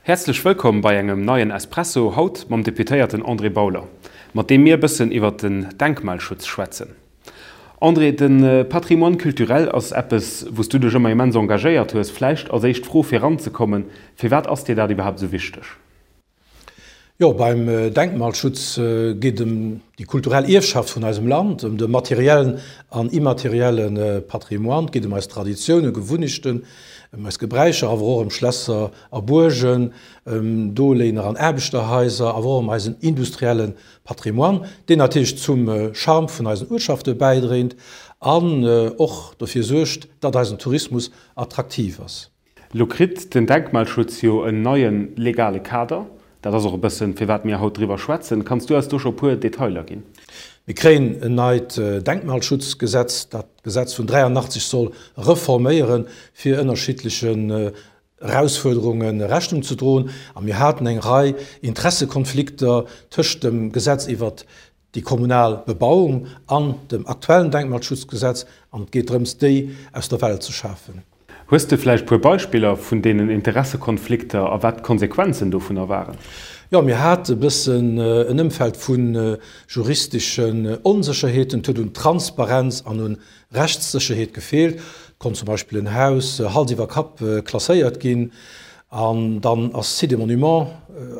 Häerzlech wëllkomm bei engem neien Espresso, haut mam Deputéierten André Bauler, mat deem mir e bëssen iwwert den Denkmalschutz schwätzen. André, de Patrimoine culturel ass eppes, wou s du dech ëmmer immens engagéiert hues. Vläicht als éischt Fro fir eranzekommen, Firwat ass dir dat iwwerhaapt esou wichteg? Jo, beim Denkmalschutz geet ëm déi kulturell Ierfschaft vun eisem Land, ëm de materiellen an immaterielle Patrimoine. Et geet ëm eis Traditiounen, Gewunnechten, ëm eis Gebräicher, awer och ëm Schlässer a Buergen, ëm Doléiner an Aarbechterhaiser, awer och ëm eisen industrielle Patrimoine, deen natierlech zum Charme vun eisen Uertschafte bäidréint an och dofir suergt, datt eisen Tourismus attraktiv ass. Lo kritt den Denkmalschutz jo en neie legale Kader. Dat ass och e bëssen, firwat mir haut driwwer schwätzen. Kanns du eis do scho e puer Detailer ginn? Mir kréien en neit Denkmalschutzgesetz, dat d'Gesetz vun 83 soll reforméieren, fir ënnerschiddlechen Erausfuerderunge Rechnung ze droen. A mir haten eng Rei Interessekonflikter tëscht dem Gesetz iwwert déi kommunal Bebauung an dem aktuellen Denkmalschutzgesetz, an et geet drëms, déi aus der Welt ze schafen. Hues de vläicht puer Beispiller vun deenen Interessekonflikter a wat d'Konsequenzen dovunner waren? Jo, mir hate bëssen en Ëmfeld vu juristeschen Onsécherheeten. Et huet un Transparenz an un Rechtssécherheet gefeelt. Et konnt zum Beispill en Haus Hals iwwer Kapp klasséiert ginn an dann ass d'Site des Monuments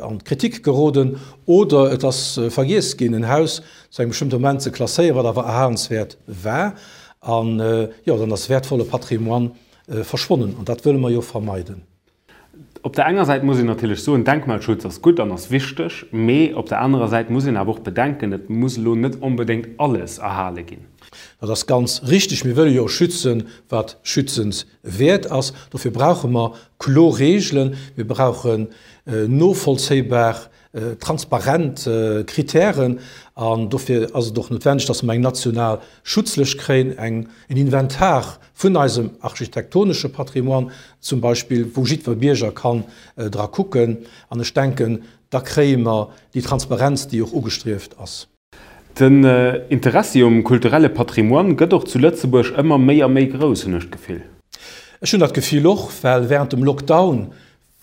an d'Kritik geroden. Oder et ass vergiess ginn, en Haus zu engem bestëmmte Moment ze klasséieren, wat awer erhalenswäert war. An jo, dann ass wäertvolle Patrimoine verschwonnen. An dat wëlle mer jo vermeiden. Op der enger Säit muss een natierlech soen, Denkmalschutz ass gutt an ass wichteg, mee op der anerer Säit muss een awer och bedenken, et muss elo net onbedéngt alles erhale ginn. Dat ass ganz richtig. Mir wëlle jo schützen, wat schützenswäert ass. Dofir brauche mer kloer Regeln. Mir brauchen novollzéibar transparent Kritären an dofir ass et och noutwendeg, dass mer eng national Schutzlëscht kréien, eng, en Inventar vun eisem architektonesche Patrimoine zum Beispill, wou jiddwer Bierger kann dra kucken. An ech denken, da kréie mer déi Transparenz, déi och ugestrieft ass. Den Interessi um kulturelle Patrimoine gëtt och zu Lëtzebuerg ëmmer méi a méi grouss, hunn ech d'Gefill. Ech hunn dat Gefill och, well während dem Lockdown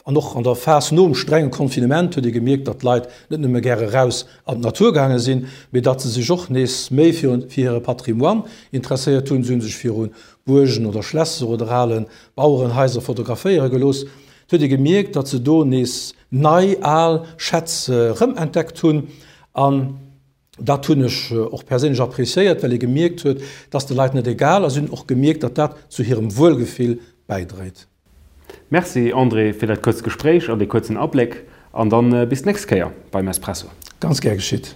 An och an der Phas nom strenge Confinement huet ee gemierkt, datt d'Leit net nëmme gäre raus an d'Natur gaange sinn, mee datt se sech och nees méi fir hire Patrimoine interesséiert hunn. Se hu sech viru Buergen oder Schlässer oder ale Bauerenhaiser fotograféiere gelooss. Et huet ee gemierkt, datt se do nees nei al Schätz erëmentdeckt hunn. An dat hunn ech och perséinlech appréciéiert, well ee gemierkt huet, datt de Leit net egal ass. Si hunn och gemierkt, datt dat zu hirem Wuelgefill bäidréit. Merci André fir dat kuerzt Gespréich an dee kuerzen Abléck an dann bis d'nächst Kéier beim Espresso. Ganz gär geschitt.